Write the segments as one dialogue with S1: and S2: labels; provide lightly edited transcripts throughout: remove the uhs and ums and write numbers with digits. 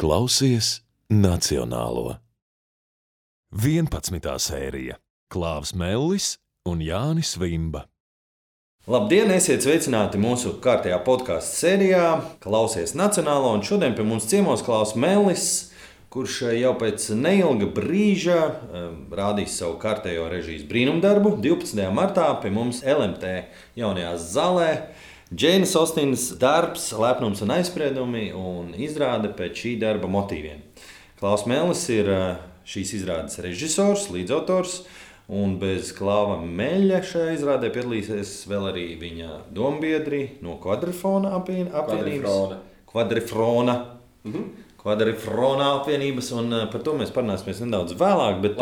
S1: Klausies Nacionālo. 11. sērija Klāvs Mellis un Jānis Vimba.
S2: Labdien, esiet sveicināti mūsu kārtējā podkāstu sērijā Klausies Nacionālo, un šodien pie mums ciemos Klāvs Mellis, kurš jau pēc neilga brīža rādīs savu kārtējo režijas brīnumdarbu. 12. martā pie mums LMT jaunajā zālē Džeinas Ostinas darbs Lepnums un aizspriedumi un izrāde pēc šī darba motīviem. Klāvs Mellis ir šīs izrādes režisors, līdzautors, un bez Klāva Meļa šajā izrādē piedalīsies vēl arī viņa dombiedri no Kvadrifrona apvienības. Kvadrifrona apvienības, un par to mēs parunāsimies nedaudz vēlāk. Bet,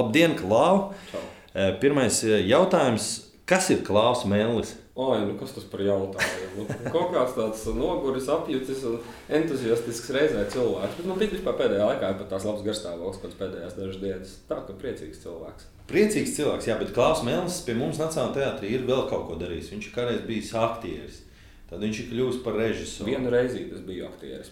S2: labdien, Klāv! Pirmais jautājums, kas ir Klāvs Mellis?
S3: Kas tas par jautājumu? Kaut kāds tāds noguris, apjucis un entuziastisks reizē cilvēks. Bet man vispār pēdējā laikā ir pat tās labs garstāvoklis pēc pēdējās dažas dienas. Tā, ka priecīgs cilvēks.
S2: Priecīgs cilvēks, jā, bet Klāvs Mellis pie mums Nacionālajā teātrī ir vēl kaut ko darījis. Viņš ir kādreiz bijis aktieris. Tad viņš ir kļuvis par režisoru.
S3: Vienu reizi es biju aktieris.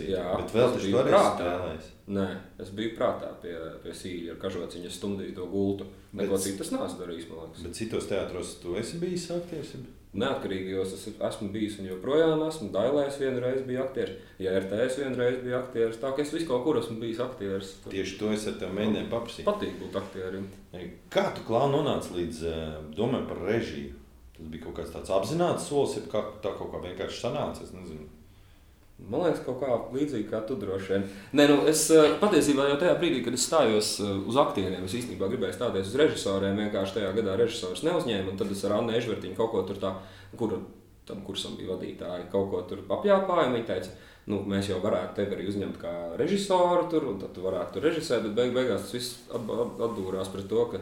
S2: Jā, bet vēl taču toreiz spēlējis.
S3: Nē, es biju prātā pie Sīļa ar kažociņas stundīju to gultu. Neko citas neesmu darījis, man liekas.
S2: Bet citos teātros tu esi bijis aktieris?
S3: Neatkarīgajos es esmu bijis un joprojām esmu. Dailēs vienu reizi biju aktieris, ja RTS vienu reizi biju aktieris. Tā ka es visu kaut kur esmu bijis aktieris.
S2: Tieši to es ar tev mēģināju paprasīt.
S3: Patīk būt aktierim.
S2: Kā tu, Klāv, nonāci līdz domai par režiju? Tas bija kaut kāds tāds apzināts solis, ja tā kaut kā vienkārši sanāca, es nezinu.
S3: Man liekas, kaut kā līdzīgi kā tu droši vien. Es patiesībā jau tajā brīdī, kad es stājos uz aktieriem, es īstenībā gribēju stāties uz režisoriem, vienkārši tajā gadā režisors neuzņēma, un tad es ar Annu Ežvertiņu kaut ko tur tā, tam kursam bija vadītāji, kaut ko tur apjāpāja, un viņi teica, mēs jau varētu tevi arī uzņemt kā režisoru tur, un tad tu varētu tur režisēt, bet beigās tas viss atdūrās pret to, ka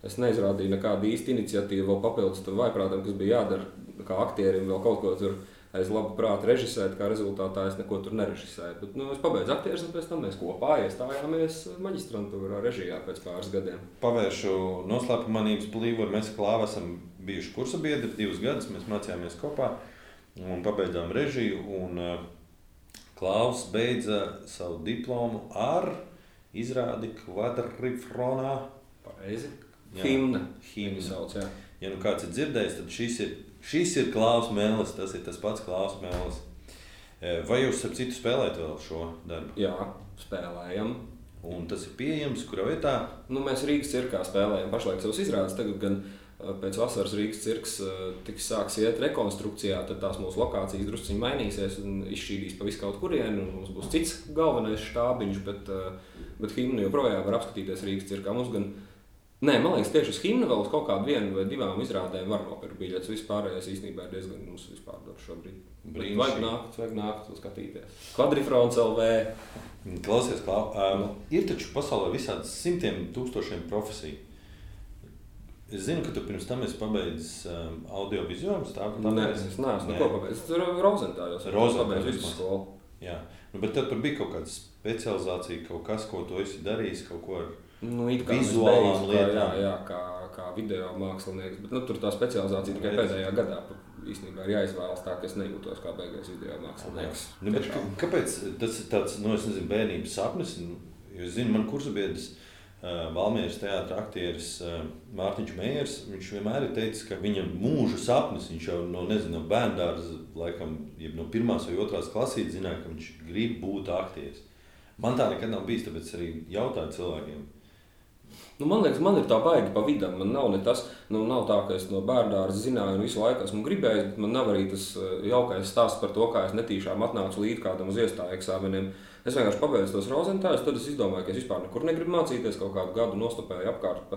S3: es neizrādīju nekādu īstu iniciatīvu vēl papildus tam vaiprātam, kas bija jādara kā aktierim vēl kaut ko tur aiz labu prātu režisēt, kā rezultātā es neko tur nerežisēju. Bet, es pabeidzu aktieris, un pēc tam mēs kopā iestājāmies maģistrantūrā režijā pēc pāris gadiem.
S2: Pavēršu noslēpumanības plīvuru. Mēs ar Klāvu esam bijuši kursa biedri 2 gadus, mēs mācījāmies kopā un pabeidzām režiju. Un Klāvs beidza savu diplomu ar izrādi Kvadrifronā.
S3: Pareizi. Himna
S2: sauc, jā. Ja kāds ir dzirdējis, tad šis ir Klāvs Mellis, tas ir tas pats Klāvs Mellis. Vai jūs ar citu spēlējat vēl šo darbu?
S3: Jā, spēlējam.
S2: Un tas ir pieejams, kurā vietā?
S3: Mēs Rīgas cirkā spēlējam pašlaik savas izrādes, tagad gan pēc vasaras Rīgas cirks sāks iet rekonstrukcijā, tad tās mūsu lokācijas drusciņi mainīsies un izšķīdīs pa visu kaut kurienu, un mums būs cits galvenais štābiņš, bet himnu joprojām var apskatīties Rīgas cirkā. Man liekas, tieši uz himnu vēl uz kaut kādu 1 vai 2 izrādēm var nopirkt biļetes. Vispārējais īstenībā ir diezgan mums vispār dar šobrīd. Vajag nākt un skatīties. Kvadrifrons LV.
S2: Klausies, Klāv, ir taču pasaulē visādas simtiem tūkstošiem profesiju. Es zinu, ka tu pirms tam esi pabeidzis audiovizuālus.
S3: Nē, es neesmu neko pabeidzis. Tas ir Rozentājos. Pabeidzu visu skolu.
S2: Jā, bet tad tur bija kaut kāda specializācija, kaut kas, ko tu esi darījis, kaut ko ar vizuālām lietām.
S3: Jā, kā video mākslinieks, bet tur tā specializācija tikai pēdējā gadā īstenībā ir jāizvēlas tā, ka es nejūtos kā beigais video mākslinieks.
S2: Kāpēc tas ir tāds, es nezinu, bērnības sapnis? Jo es zinu, man kursabiedrs Valmieras teātra aktieris Mārtiņš Mējers, viņš vienmēr ir teicis, ka viņa mūža sapnis, viņš jau no bērndārza, laikam, no 1. vai 2. klasītes zināja, ka viņš grib būt aktieris. Man tā nekad nav bijis, tāpēc arī jautāju cilvēkiem.
S3: Man liekas, man ir tā baigi pa vidam. Man nav ne tas, nav tā, ka es no bērndārza zināju un visu laiku esmu gribējis, bet man nav arī tas jaukais stāsts par to, kā es netīšām atnācu līdz kādam uz iestāju eksāmeniem. Es vienkārši pabeidzu tos Rozentājus, tad es izdomāju, ka es vispār nekur negribu mācīties, kaut kādu gadu nostopēju apkārt,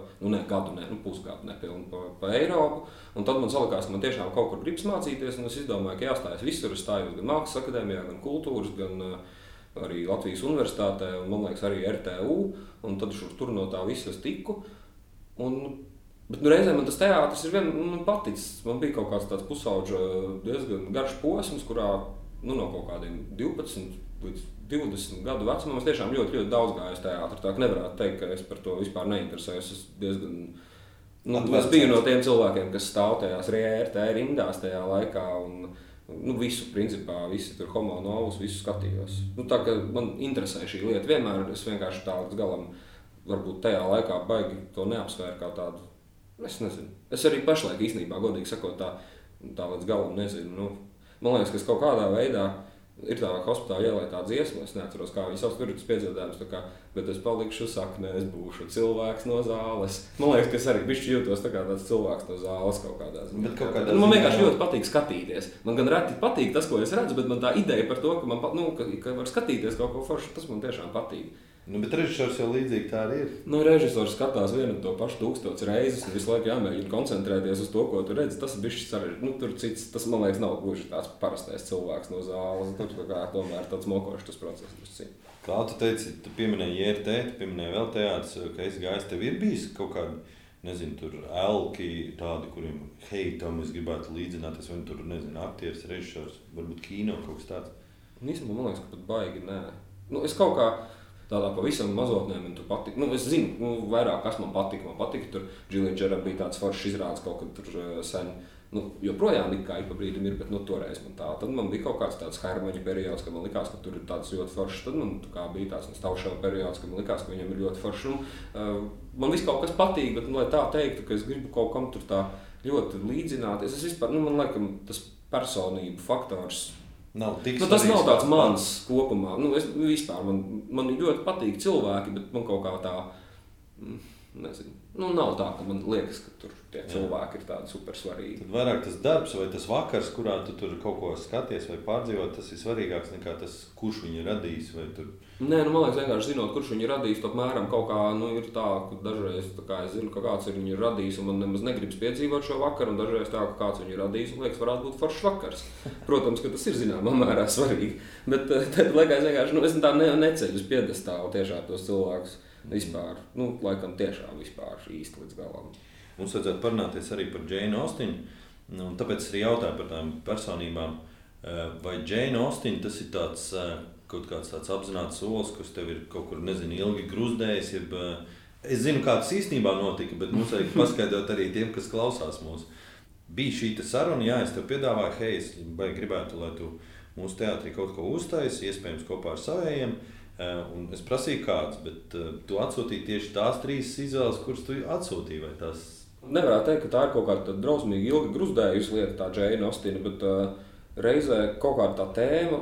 S3: pusgadu nepilnu pa Eiropu, un tad man salikās, ka man tiešām kaut kur gribas mācīties, un es izdomāju, ka jāstājas visur, es stājos gan Mākslas akadēmijā, gan kultūras, gan arī Latvijas universitātē, un man liekas arī RTU, un tad tur no tā visa es tiku. Bet reizē man tas teātris ir paticis. Man bija kaut kāds tāds pusauģa diezgan garš posms, kurā no kaut kādiem 12 līdz 20 gadu vecumam es tiešām ļoti, ļoti daudz gāju uz teātri. Tā ka nevarētu teikt, ka es par to vispār neinteresējos. Es diezgan es biju no tiem cilvēkiem, kas stāv tajās RT rindās tajā laikā, un Visu, principā, visi tur homo novus, visu skatījos. Tā kā man interesē šī lieta, vienmēr es vienkārši tā līdz galam, varbūt tajā laikā baigi to neapsvēru kā tādu, es nezinu. Es arī pašlaik īstenībā, godīgi sakot, tā līdz galam nezinu. Man liekas, ka kaut kādā veidā ir tā hospitāla ielai tā dziesma, es neatceros, kā viņi sauc, tur ir tas piedziedājums, bet es palikšu saknē, es būšu cilvēks no zāles. Man liekas, ka es arī bišķi jūtos tā kā tāds cilvēks no zāles kaut kādā ziņā. Man vienkārši ļoti patīk skatīties. Man gan reti patīk tas, ko es redzu, bet man tā ideja par to, ka var skatīties kaut ko foršu, tas man tiešām patīk.
S2: Bet režisors jau līdzīgi tā arī ir.
S3: Režisors skatās vienu to pašu 1000 reizes un visu laiku jāmēģina koncentrēties uz to, ko tu redzi. Tas ir bišķi sarežģīti. Tur cits, tas, man liekas, nav gluži tāds parastais cilvēks no zāles. Tur tomēr tāds mokošs tas process.
S2: Kā tu teici, tu pieminēji JRT, tu pieminēji vēl teātris, ka esi gājis, tev ir bijis kaut kādi, nezinu, tur elki tādi, kuriem, tam es gribētu līdzināties, vai tur, nezinu, aktieris, režisors, varbūt kino kaut kas tāds?
S3: Īstenībā, man liekas, ka pat baigi nē. Es kaut kā tādā pavisam mazotnē man tur patika. Es zinu, vairāk kas man patika. Man patika, tur Džilija Džera bija tāds foršs izrādes kaut kad tur sen. Joprojām it kā ik pa brīdim ir, bet toreiz man tā. Tad man bija kaut kāds tāds Hermaņa periods, kad man likās, ka tur ir tāds ļoti foršs. Tad man bija tāds Stauševa periods, kad man likās, ka viņam ir ļoti foršs. Man viss kaut kas patīk, bet, lai tā teiktu, ka es gribu kaut kam tur tā ļoti līdzināties. Es vispār, man laikam, tas personību faktors tas nav tāds mans kopumā. Es vispār, man ļoti patīk cilvēki, bet man kaut kā tā, nezinu, nav tā, ka man liekas, ka tur tie cilvēki ir tādi super svarīgi.
S2: Tad vairāk tas darbs vai tas vakars, kurā tu tur kaut ko skaties vai pārdzīvot, tas ir svarīgāks nekā tas, kurš viņu radīs vai tur.
S3: Nē, man liekas, vienkārši zinot, kurš viņu radīs, apmēram kaut kā, ir tā, ka dažreiz tā kā es zinu, ka kāds ir viņu radījis, un man nemaz negribas piedzīvot šo vakaru, un dažreiz tā, ka kāds viņu radījis, un liekas, varētu būt foršs vakars. Protams, ka tas ir zināmā mērā svarīgi, bet tad liekas vienkārši, es tā neceļu uz piedestālu tiešām tos cilvēkus vispār, laikam tiešām vispār īsti līdz galam.
S2: Mums vajadzētu parunāties arī par Džeinu Ostinu, un tāpēc arī jautāju par tām personībām. Vai Džeina Ostina tas ir tāds, kaut kāds tāds apzināts solis, kas tev ir kaut kur, nezinu, ilgi gruzdējis, es zinu, kā tas īstenībā notika, bet mums vajag paskaidrot arī tiem, kas klausās mūs. Bija šī saruna, es tev piedāvāju, es gribētu, lai tu mūsu teātrī kaut ko uztaisi, iespējams kopā ar savējiem, un es prasīju kāds, bet tu atsūtīji tieši tās 3 izvēles, kuras tu atsūtīji, vai tās?
S3: Nevarētu teikt, ka tā ir kaut kāda drausmīgi ilgi gruzdējusi lieta, tā Džeina Ostina, bet reizē kaut kāda tā tēma,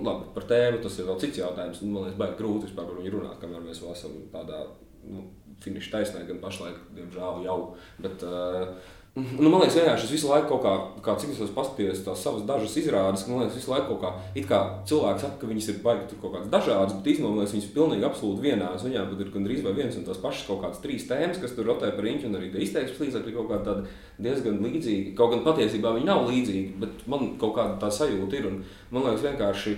S3: labi, par tēmu tas ir vēl cits jautājums, man liekas, baigi grūti vispār par viņu runāt, kamēr mēs vēl esam tādā finiša taisnē, gan pašlaik, diemžēl jau, bet man liekas, vienkārši es visu laiku kaut kā cik es esmu paskatījies tās savas dažas izrādes, man liekas, visu laiku kaut kā, it kā cilvēki saka, ka viņas ir baigi tur kaut kādas dažādas, bet īstenībā, man liekas, viņas ir pilnīgi absolūti vienādas, viņām pat ir gandrīz vai viens un tās pašas kaut kādas 3 tēmas, kas tur rotē par riņķi, un arī tie izteiksmes līdzekļi kaut kādi tādi diezgan līdzīgi, kaut gan patiesībā viņi nav līdzīgi, bet man kaut kāda tā sajūta ir, un man liekas vienkārši,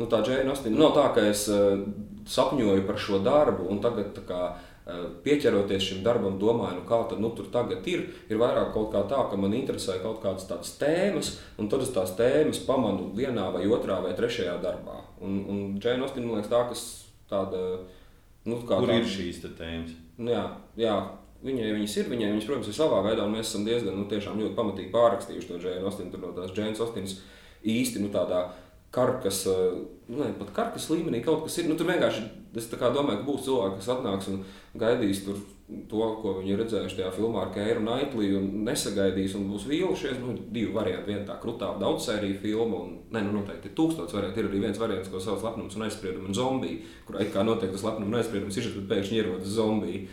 S3: tā Džeina Ostina, nav tā, ka es sapņoju par šo darbu, un tagad tā kā pieķeroties šim darbam, domāju, kā tad tur tagad ir vairāk kaut kā tā, ka man interesē kaut kādas tādas tēmas, un tad es tās tēmas pamanu vienā vai otrā vai trešajā darbā. Un Džeina Ostina, man liekas, tā, kas tāda,
S2: Kur ir šīs tēmas?
S3: Jā, viņas ir, viņas, protams, ir savā veidā, un mēs esam diezgan, tiešām ļoti pamatīgi pārrakstījuši to Džeina Ostinu, tur no tās Džeinas Ostinas īsti, tādā karkas, pat karkas līmenī kaut kas ir. Tur vienkārši, es tā kā domāju, ka būs cilvēki, kas atnāks un gaidīs tur to, ko viņi ir redzējuši tajā filmā ar Keiru Naitliju un nesagaidīs un būs vīlušies. 2 varianti, viena tā krutā daudzsērija filma un, noteikti ir 1000 varianti. Ir arī viens variants, ko sauc Lepnums un aizspriedumi un zombiji, kurā it kā notiek tas lepnums un aizspriedums ir, bet pēkšņi ierodas zombiji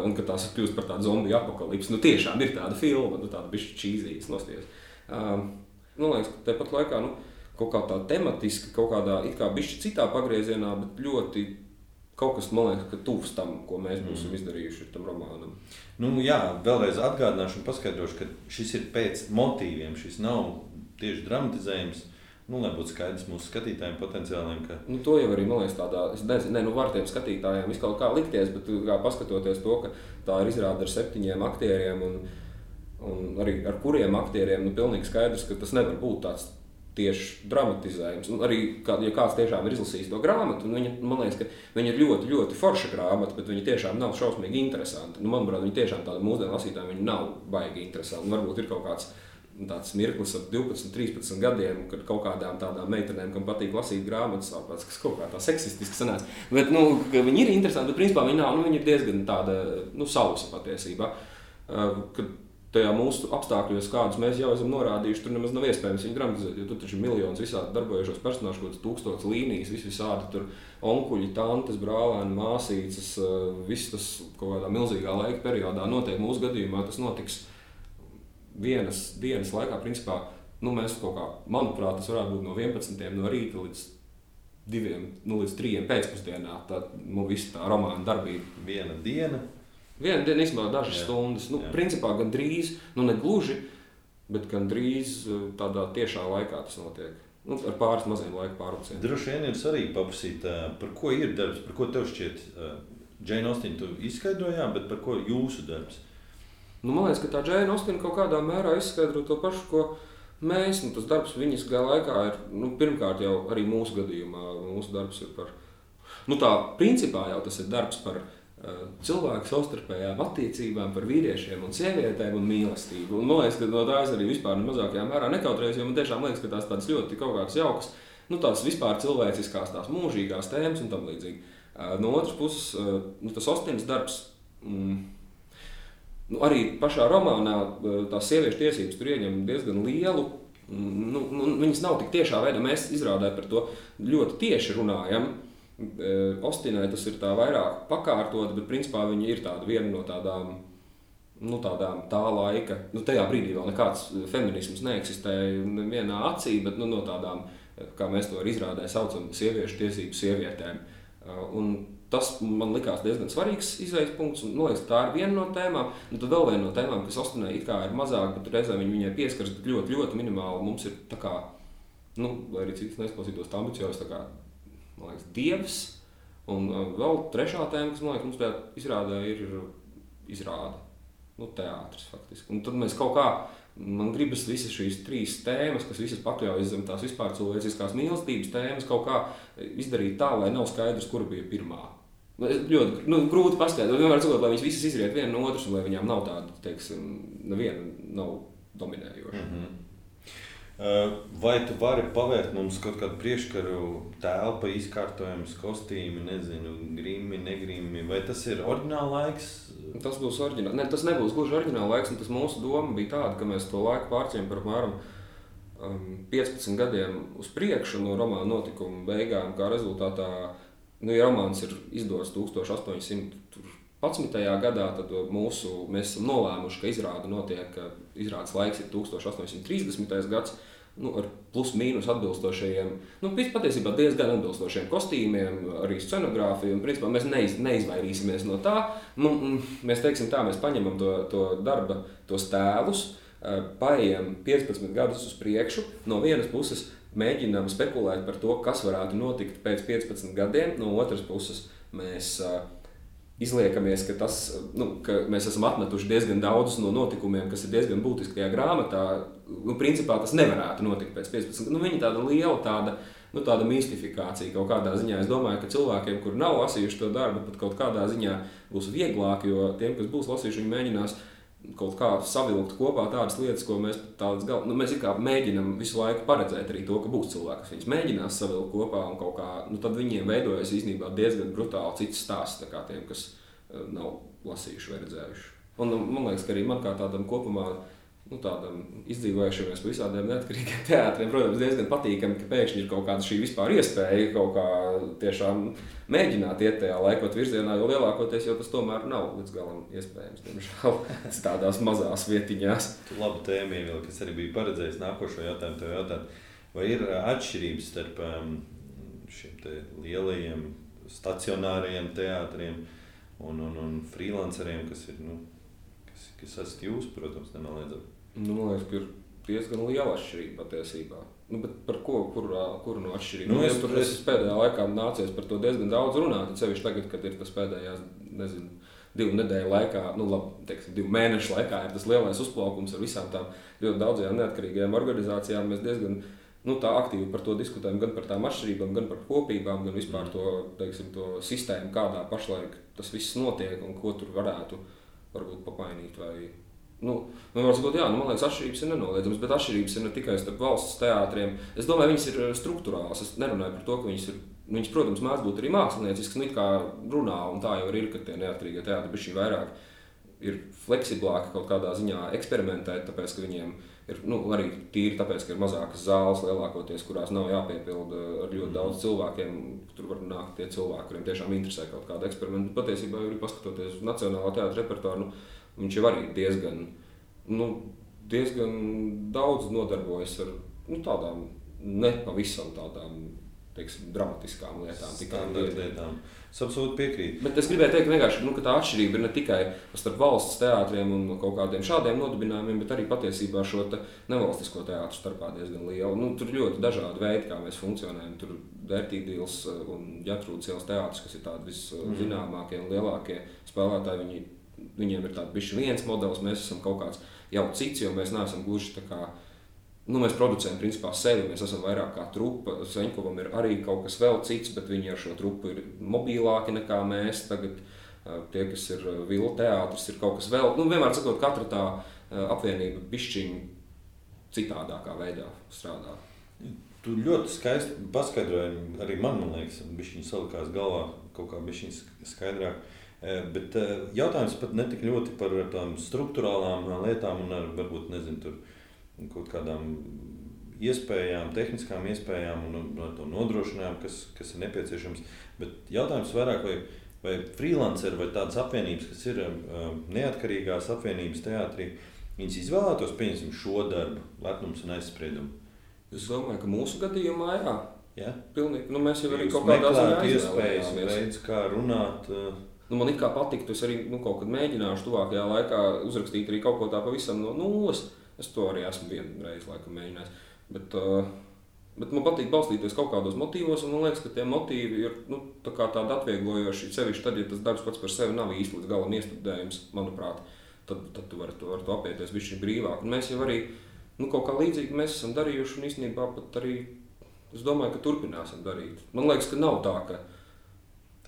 S3: un ka tās kļūst par tādu zombiju apokalipsi. Tiešām ir tāda filma, tāda bišķi čīzīgas nosties. Man liekas, ka tepat laikā, kaut kā tā tematiski, kaut kādā it kā bišķi citā pagriezienā, bet ļoti kaut kas, man liekas, ka tuvs tam, ko mēs būsim izdarījuši tam romānam.
S2: Vēlreiz atgādināšu un paskaidrošu, ka šis ir pēc motīviem, šis nav tieši dramatizējums, lai būtu skaidrs mūsu skatītājiem potenciāliem, ka...
S3: To jau arī, man liekas, tādā, es nezinu, var tiem skatītājiem viskaut kā likties, bet kā paskatoties to, ka tā ir izrāde ar 7 aktieriem un arī ar kuriem aktieriem, pilnīgi skaidrs, ka tas nevar būt tāds tieši dramatizējums. Un arī, ja kāds tiešām ir izlasījis to grāmatu, man liekas, ka viņa ir ļoti, ļoti forša grāmata, bet viņa tiešām nav šausmīgi interesanti. Manuprāt, viņa tiešām tāda mūsdienu lasītājiem viņa nav baigi interesanti. Varbūt ir kaut kāds tāds mirklis ap 12, 13 gadiem, kad kaut kādām tādām meitenēm, kam patīk lasīt grāmatas, kas kaut kā tā seksistiski sanāca. Bet, viņi ir interesanti, bet principā viņi nav, viņi ir diezgan tāda, sausa patiesībā. Kad tajā mūsu apstākļos, kādus mēs jau esam norādījuši, tur nemaz nav iespējams viņu dramatizēt, jo tur taču ir miljonus visādi darbojušos personāžu, kaut kāds 1000 līnijas, visādi tur onkuļi, tantes, brālēni, māsīcas, viss tas kaut kādā milzīgā laika periodā notiek. Mūsu gadījumā tas notiks vienas dienas laikā, principā, mēs kaut kā, manuprāt, tas varētu būt no 11. no rīta līdz 2, līdz 3 pēcpusdienā, tad, visa tā romāna darbība.
S2: Viena diena,
S3: īstenībā dažas stundas, principā gandrīz, ne gluži, bet gandrīz tādā tiešā laikā tas notiek. Ar pāris maziem laika pārvilcieniem.
S2: Droši vien ir svarīgi paprasīt, par ko ir darbs, par ko tev šķiet, Jane Austen tu izskaidrojām, bet par ko jūsu darbs?
S3: Man liekas, ka tā Jane Austen kaut kādā mērā izskaidro to pašu, ko mēs. Tas darbs viņas laikā ir, pirmkārt jau arī mūsu gadījumā, mūsu darbs ir par, principā jau tas ir darbs par cilvēku savstarpējām attiecībām, par vīriešiem un sievietēm un mīlestību. Un man liekas, ka no tā es arī vispār mazākajā mērā nekautrējos, jo man tiešām liekas, ka tās tādas ļoti kaut kādas jaukas, tās vispār cilvēciskās, tās mūžīgās tēmas un tam līdzīgi. No otras puses, tas Austenes darbs, arī pašā romānā tās sieviešu tiesības tur ieņem diezgan lielu, viņas nav tik tiešā veidā, mēs izrādē par to ļoti tieši runājam. Austenai tas ir tā vairāk pakārtot, bet principā viņa ir tāda viena no tādām, tā laika, tajā brīdī vēl nekāds feminisms neeksistēja nevienā acī, bet no tādām, kā mēs to izrādē saucam, sieviešu tiesību sievietēm. Un tas man likās diezgan svarīgs izējas punkts, un liekas, tā ir viena no tēmām. Un tad vēl viena no tēmām, kas Austenai it kā ir mazāk, bet reizē viņai pieskaras, bet ļoti, ļoti minimāli. Mums ir tā kā, lai arī cits neizklausītos tā ambiciozs, tā kā, man liekas, dievs. Un vēl trešā tēma, kas, man liekas, mums tajā izrādē ir izrāde. Teātris faktiski. Un tad mēs kaut kā, man gribas visas šīs 3 tēmas, kas visas pakļaujas zem tās vispār cilvēciskās mīlestības tēmas, kaut kā izdarīt tā, lai nav skaidrs, kura bija pirmā. Ļoti grūti paskaidrot, vienmēr sakot, lai viņas visas izriet viena no otras, un lai viņām nav tāda, teiksim, neviena nav dominējoša.
S2: Vai tu vari pavērt mums kaut kādu priekškaru telpa, izkārtojums, kostīmi, nezinu, grimi, negrimi, vai tas ir oriģināla laiks?
S3: Tas būs oriģināli. Ne, tas nebūs gluži oriģināla laiks, un tas mūsu doma bija tāda, ka mēs to laiku pārceļam par apmēram 15 gadiem uz priekšu no romāna notikuma beigām, kā rezultātā, ja romāns ir izdots 1811. gadā, tad mēs esam nolēmuši, ka izrāde notiek, izrādes laiks ir 1830. gads, ar plus mīnus atbilstošajiem, patiesībā diezgan atbilstošiem kostīmiem, arī scenogrāfiju, un principā mēs neizvairīsimies no tā. Mēs teiksim tā, mēs paņemam to darba, tos tēlus, paejam 15 gadus uz priekšu, no vienas puses mēģinām spekulēt par to, kas varētu notikt pēc 15 gadiem, no otras puses mēs izliekamies, ka mēs esam atmetuši diezgan daudzus no notikumiem, kas ir diezgan būtiski tajā grāmatā. Principā tas nevarētu notikt pēc 15. Viņa tāda liela tāda mistifikācija kaut kādā ziņā. Es domāju, ka cilvēkiem, kuri nav lasījuši to darbu, pat kaut kādā ziņā būs vieglāk, jo tiem, kas būs lasījuši, viņi mēģinās kaut kā savilkt kopā tādas lietas, ko mēs mēs mēģinām visu laiku paredzēt arī to, ka būs cilvēki, kas viņas mēģinās savilkt kopā un kaut kā, tad viņiem veidojas īstenībā diezgan brutāli cits stāsts, tā kā tiem, kas nav lasījuši vai redzējuši. Un man liekas, ka arī man kā tādam kopumā, tādam izdzīvojušamies pa visādiem neatkarīgiem teātriem, protams, diezgan patīkami, ka pēkšņi ir kaut kāda šī vispār iespēja kaut kā tiešām mēģināt iet tajā laikot virzienā, jo lielākoties jau tas tomēr nav līdz galam iespējams, diemžēl, tādās mazās vietiņās.
S2: Tu labu tēmu ievilki, kas arī bija paredzējis nākošo jautājumu tev jautāt. Vai ir atšķirības starp šiem te lielajiem stacionārajiem teātriem un freelanceriem, kas ir, kas esat jūs, protams, nenoliedzami?
S3: Man liekas, ka ir diezgan liela atšķirība patiesībā. Bet par kuru no atšķirību? Es pēdējā laikā nācies par to diezgan daudz runāt, sevišķi tagad, kad ir tas pēdējās, 2 nedēļu laikā, 2 mēnešu laikā ir tas lielais uzplaukums ar visām tām ļoti daudzajām neatkarīgajām organizācijām. Mēs diezgan tā aktīvi par to diskutējam, gan par tām atšķirībām, gan par kopībām, gan vispār to sistēmu, kādā pašlaik tas viss notiek un ko tur varētu varbūt pamainīt vai var sakot, jā, man liekas, atšķirības ir nenoliedzamas, bet atšķirības ir ne tikai starp valsts teātriem. Es domāju, viņas ir struktūrāls. Es nerunāju par to, ka viņas, protams, mēdz būt arī mākslinieciskas, it kā runā, un tā jau ir, ka tie neatkarīgie teātri bišķi vairāk ir fleksiblāki kaut kādā ziņā eksperimentēt, tāpēc, ka viņiem ir, arī tīri tāpēc, ka ir mazākas zāles lielākoties, kurās nav jāpiepilda ar ļoti daudz cilvēkiem. Tur var nākt tie cilvēki, kuriem tiešām interesē kaut kāda eksperimenta. Patiesībā, arī paskatoties uz Nacionālā teātra repertuāru, viņš jau arī diezgan daudz nodarbojas ar tādām nepavisam tādām, teiksim, dramatiskām lietām.
S2: Lietām. Es absolūti piekrītu.
S3: Bet es gribēju teikt vienkārši, ka tā atšķirība ir ne tikai starp valsts teātriem un kaut kādiem šādiem nodibinājumiem, bet arī patiesībā šo nevalstisko teātru starpā diezgan liela. Tur ir ļoti dažādi veidi, kā mēs funkcionējam. Tur Vērtīdīls un Ģertrūdes ielas teātris, kas ir tādi viszināmākie un lielākie spēlētāji, viņiem ir tāds bišķi viens modelis, mēs esam kaut kāds jau cits, jo mēs neesam gluži tā kā. Mēs producējam principā sevi, mēs esam vairāk kā trupa. Seņkovam ir arī kaut kas vēl cits, bet viņi ar šo trupu ir mobilāki nekā mēs. Tagad tie, kas ir Vila teātris, ir kaut kas vēl. Vienmēr sakot, katra tā apvienība bišķiņ citādākā veidā strādā.
S2: Tu ļoti skaisti paskaidroji, arī man liekas, bišķiņ salikās galvā kaut kā bišķiņ skaidrāk. Bet jautājums pat ne tik ļoti par tām struktūrālām lietām un ar, varbūt, nezinu, tur kaut kādām iespējām, tehniskām iespējām un to nodrošinājumu, kas ir nepieciešams. Bet jautājums vairāk, vai freelanceri vai tādas apvienības, kas ir neatkarīgās apvienības teātrī, viņas izvēlētos, pieņemsim, šo darbu, lepnums un aizspriedumu?
S3: Es domāju, ka mūsu gadījumā jā.
S2: Ja?
S3: Pilnīgi. Mēs jau arī kaut kādā ziņā
S2: iespējas, veids, kā runāt.
S3: Man it kā patiktu, es arī kaut kad mēģināšu tuvākajā laikā uzrakstīt arī kaut ko tā pavisam no nulles. Es to arī esmu vienreiz laikam mēģinājis. Bet man patīk balstīties kaut kādos motīvos, un man liekas, ka tie motīvi ir tādi atvieglojoši, sevišķi tad, ja tas darbs pats par sevi nav īsti līdz galam iestudējums, manuprāt, tad tu vari to apieties bišķi brīvāk. Un mēs jau arī kaut kā līdzīgi mēs esam darījuši, un īstenībā pat arī, es domāju, ka turpināsim darīt. Man liekas, ka nav tā, ka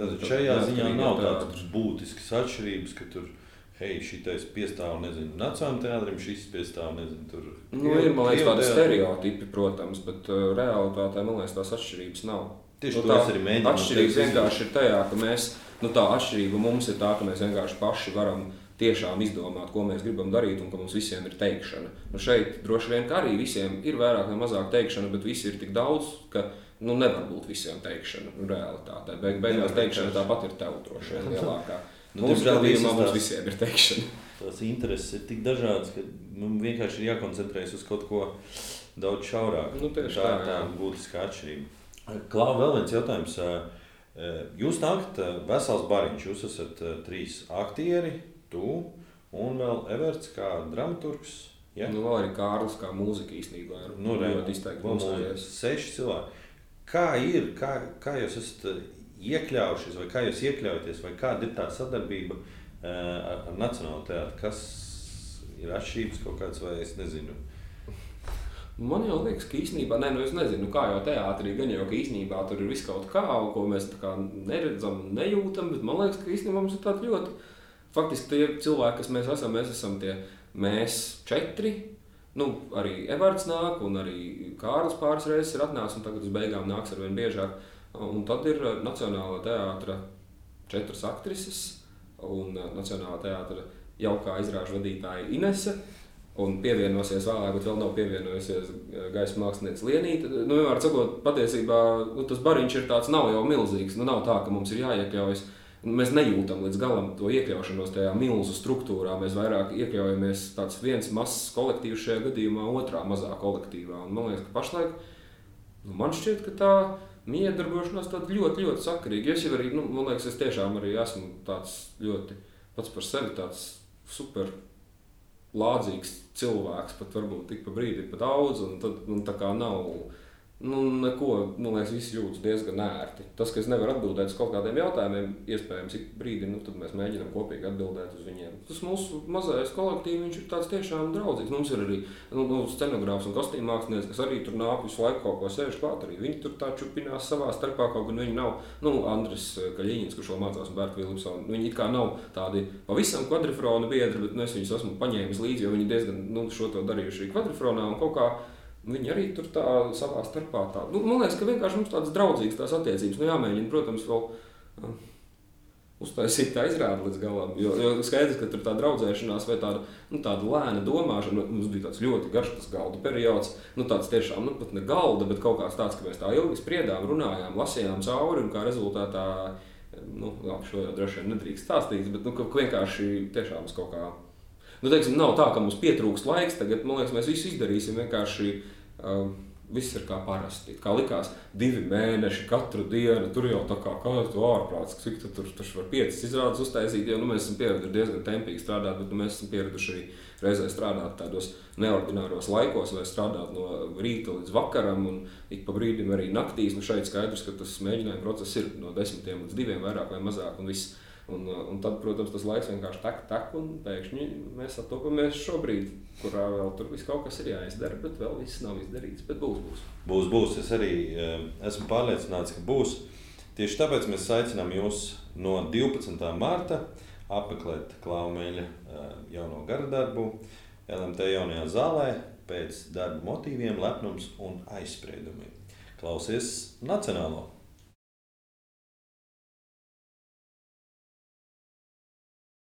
S2: tad šajā ziņā nav tādas būtiskas atšķirības, ka tur šitais piestāv, nezinu, Nacionālajam teātrim, šis piestāv, nezinu, tur.
S3: Ir, man liekas, tādi stereotipi, protams, bet realitātē, man liekas, tās atšķirības nav.
S2: Tieši to es arī mēģinu.
S3: Atšķirības vienkārši ir tajā, ka mēs, tā atšķirība mums ir tā, ka mēs vienkārši paši varam tiešām izdomāt, ko mēs gribam darīt un ka mums visiem ir teikšana. Šeit droši vien, ka arī visiem ir vairāk vai mazāk teikšana, bet visi ir tik daudz, ka nevar būt visiem teikšana realitātē. Beigās teikšana tāpat ir tev droši vien lielākā. Mūsu gadījumā mums visiem ir teikšana.
S2: Tās intereses ir tik dažādas, ka mums vienkārši ir jākoncentrējas uz kaut ko daudz šaurāk.
S3: Tieši
S2: tā būtiskā atšķirība. Klau, vēl viens jautājums. Jūs nākat vesels bariņš. Jūs esat 3 aktieri, tu un vēl Everts kā dramaturgs. Ja?
S3: Vēl arī Kārlis kā mūzika īstenībā ir ļoti izteikti mūzējies.
S2: 6 cilvēki. Kā ir? Kā jūs esat iekļaujušies, vai kā jūs iekļaujaties, vai kāda ir tā sadarbība ar Nacionālo teātru? Kas ir atšķirības kaut kāds, vai es nezinu?
S3: Man jau liekas, ka īstenībā, es nezinu, kā jau teātrī, gan jau, ka īstenībā tur ir viss kaut kā, ko mēs tā kā neredzam, nejūtam, bet man liekas, ka īstenībā mums ir tādi ļoti, faktiski tie cilvēki, kas mēs esam tie mēs 4, arī Everts nāk, un arī Kārlis pāris reizes ir atnācis, un tagad uz beigām nāks arvien biežāk. Un tad ir Nacionālā teātra 4 aktrises un Nacionālā teātra jaukā izrāžu vadītāja Inese. Un pievienosies vēlāk, bet vēl nav pievienojusies gaisa mākslinieca Lienīte. Vienmēr sakot, patiesībā tas bariņš ir tāds, nav jau milzīgs. Nav tā, ka mums ir jāiekļaujas. Mēs nejūtam līdz galam to iekļaušanos tajā milzu struktūrā. Mēs vairāk iekļaujamies tāds viens mazs kolektīvs šajā gadījumā, otrā mazā kolektīvā. Un man liekas, ka pašlaik, man šķiet, ka tā miedarbošanās tāda ļoti, ļoti sakarīga. Es jau arī, man liekas, es tiešām arī esmu tāds ļoti pats par sevi tāds super lādzīgs cilvēks, pat varbūt tik pa brīdi pat daudz, un tad tā kā nav Neko, man liekas, visi jūtas diezgan ērti. Tas, ka es nevaru atbildēt uz kaut kādiem jautājumiem, iespējams, ik brīdi, tad mēs mēģinām kopīgi atbildēt uz viņiem. Tas mūsu mazais kolektīvs, viņš ir tāds tiešām draudzīgs. Mums ir arī scenogrāfs un kostīmu mākslinieks, kas arī tur nāk visu laiku kaut ko sēž klāt. Arī viņi tur tā čupinās savā starpā, kaut gan viņi nav, Andris Kaļiņins, kurš vēl mācās un Bērta Vilipsona, viņi it kā nav tādi pavisam kvadrifrona biedri, bet es viņus esmu paņēmis līdzi, jo viņi diezgan šo to darījuši kvadrifronā un kaut kā. Viņi arī tur tā savā starpā tā. Man liekas, ka vienkārši mums tādas draudzīgas tās attiecības. Jāmēģina, protams, vēl uztaisīt tā izrādi līdz galam. Jo skaidrs, ka tur tā draudzēšanās vai tāda lēna domāšana. Mums bija tāds ļoti garš tas galda periods. Tāds tiešām, pat ne galda, bet kaut kāds tāds, ka mēs tā ilgi spriedām, runājām, lasījām cauri un kā rezultātā, šo jau droši vien nedrīkst stāstīt, bet ka vienkārši tiešām kaut kā. Teiksim, nav tā, ka mums pietrūkst laiks, tagad, man liekas, mēs visu izdarīsim vienkārši, viss ir kā parasti. Kā likās 2 mēneši katru dienu, tur jau tā kā tu ārprāts, cik tu tur var 5 izrādes uztaisīt, jo mēs esam pieraduši diezgan tempīgi strādāt, bet mēs esam pieraduši arī reizē strādāt tādos neordināros laikos, vai strādāt no rīta līdz vakaram un ik pa brīdim arī naktīs. Šeit skaidrs, ka tas mēģinājuma process ir no 10 līdz 2 vairāk vai mazāk un viss. Un tad, protams, tas laiks vienkārši tak, un pēkšņi mēs attopamies šobrīd, kurā vēl tur viss kaut kas ir jāizdara, bet vēl viss nav izdarīts, bet būs.
S2: Būs. Es arī esmu pārliecināts, ka būs. Tieši tāpēc mēs aicinām jūs no 12. marta apmeklēt Klaumeļa jauno garadarbu LMT jaunajā zālē pēc darba motīviem, lepnums un aizspriedumiem. Klausies Nacionālo!